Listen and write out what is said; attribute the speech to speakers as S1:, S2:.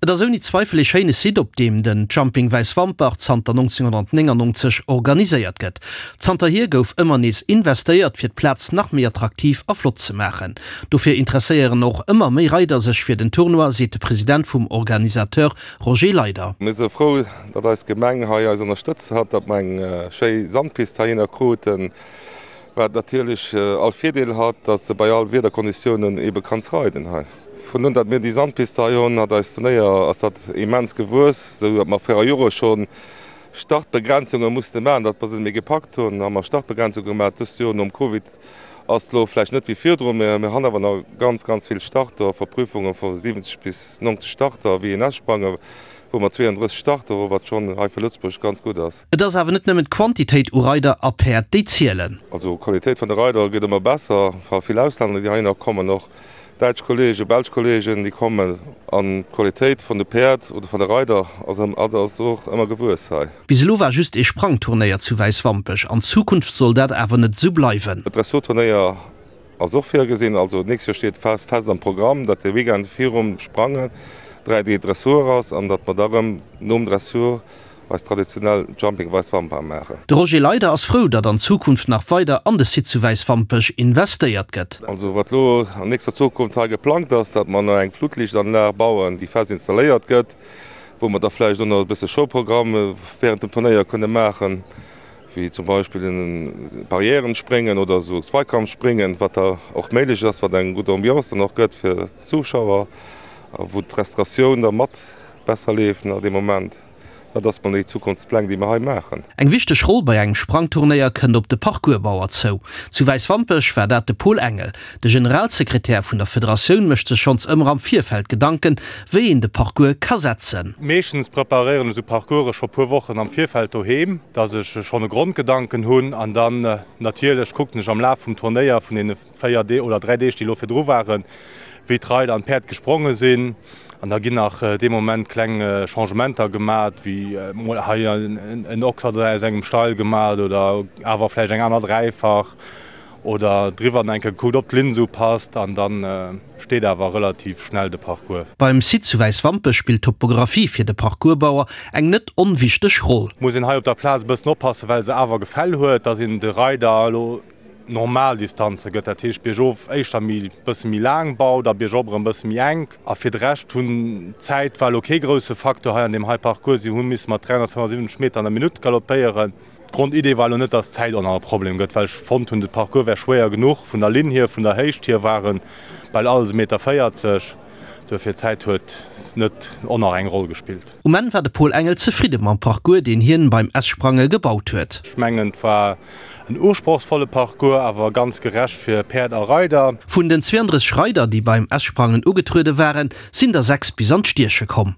S1: Et ass ouni Zweifel ee schéine Site, op deem den Jumping Wäiswampech zanter 1999 organiséiert gëtt. Zanterhier gouf ëmmer nees investéiert, fir d'Plaz nach méi attraktiv a flott ze maachen. Dofir interesséieren och ëmmer méi Reider sech fir den Tournoi, seet de President vum Organisateur Roger Leyder.
S2: Mir si frou, datt eis Gemeng hei eis ënnerstëtzt hat, datt mer eng schéi Sandpist heihinner kruten, wat natierlech all Virdeel hat, datt s de bei all Wiederkonditiounen ebe kanns reiden hei. Vun un datt mir déi Sandpiste hei hunn, hat eist Turnéier, ass dat immens gewuess, esou datt mer viru Jore scho Startbegrenzunge musste maachen, datt mer se net méi gepackt hunn, hu mer Startbegrenzunge gemaach. Dëst Joer nom Covid ass et elo vläicht net wéi virdrun, mä mir han awer nach ganz, ganz vill Starter, Verprüfunge vu 70 bis 90 Starter, wéi een S-Sprange wou mer 32 Starter hu, wat schonn hei fir Lëtzebuerg ganz gutt ass.
S1: Et ass awer net nëmmen d'Quantitéit u Reider a Päerd, déi zielen.
S2: Also d'Qualitéit vun de Reider gëtt ëmmer besser, vill Auslänner, déi heihinner kommen och. Däitsch Kollegen, belsch Kollegen, déi kommen an d'Qualitéit vun de Päerd oder vun de Reider ass ass och ëmmer gewuess hei.
S1: Bis elo war just ee Sprangturnéier zu Wäiswampech, an Zukunft soll dat awer net esou bleiwen.
S2: E Dressurturnéier ass och virgesinn, also d'nächst Joer steet fest am Programm, datt de Weekend virum Sprangen 3 Deeg Dressur ass an datt mer da rëm nom Dressur eis traditionell Jumping Weiswamper maachen.
S1: De Roger Leyder ass frou, datt an Zukunft nach weider an de Site zu Wäiswampech investéiert gëtt.
S2: Also wat elo an nächster Zukunft hei geplangt ass, datt mer nach eng Flutlichtanlag bauen, déi fest installéiert gëtt, wou mer da vläicht och nach e bësse Showprogramm während dem Turnéier kënne maachen, wéi zum Beispill Barrièrenspréngen oder esou Zweikampfspréngen, wat da och méiglech ass, wat eng gutt Ambiance dann och gëtt fir d'Zuschauer a wou d'Restauratioun da mat besser leeft nach dee Moment. Dat ass mol déi Zukunftspläng, déi mer hei maachen.
S1: Eng wichteg Roll bei engem Sprangturnéier kënnt op de Parcoursbauer zou. Zu Wäiswampech war dat de Paul Engel. De Generalsekretär vun der Federatioun mécht sech schonns ëmmer am Virfeld Gedanken, wéi een de Parcours ka setzen.
S3: Meeschtens preparéieren ech esou Parcourse scho puer Wochen am Virfeld doheem, dass ech schonn e Grondgedanken hunn an dann natierlech kucken ech am Laf vum Turnéier vun deene 4 Deeg oder 3 Deeg, déi elo virdru waren, wéi d'Reider an d'Päerd gespronge sinn. An da ginn nach dee Moment kleng Changementer gemat, wéi mol hei en Oxer aus engem Steil gemat oder awer vläicht eng aner Dräifach oder driwwer nach eng Kéier gekuckt, ob d'Linn esou passt. An da steet awer relativ schnell de Parcours.
S1: Beim Site zu Wäiswampech spillt d'Topographie fir de Parcoursbauer eng net onwichteg Roll.
S3: Muss een hei op der Plaz e bëssen oppassen, well se awer Gefäll huet, dass een de Reider elo normal Distanze gëtt, dat heescht biergof éischter méi bësse méi laang baut a biergop erëm bësse méi enk. A fir de Rescht hunn d'Zäit war elo kee grousse Facteur hei an deem hei Parcours. Si hu misse mat 375 Meter an der Minutt galoppéieren. D'Grondidee war elo net, dass d'Zäit och nach e Problem gëtt, well ech fonnt hunn, de Parcours wär schwéier genuch vun der Linn hier, vun der Héicht hier ware bal alles e Meter 40. Duerfir d'Zäit huet net och nach eng Roll gespillt.
S1: Um Enn war de Paul Engel zefridde mam Parcours, deen hien beim S-Sprange gebaut huet.
S3: Ech mengen et war en usprochsvolle Parcours, awer ganz gerecht fir Päerd a Reider.
S1: Vun den 32 Reider, déi beim S-Sprangen ugetruede waren, sinn der 6 bis an d'Stieche komm.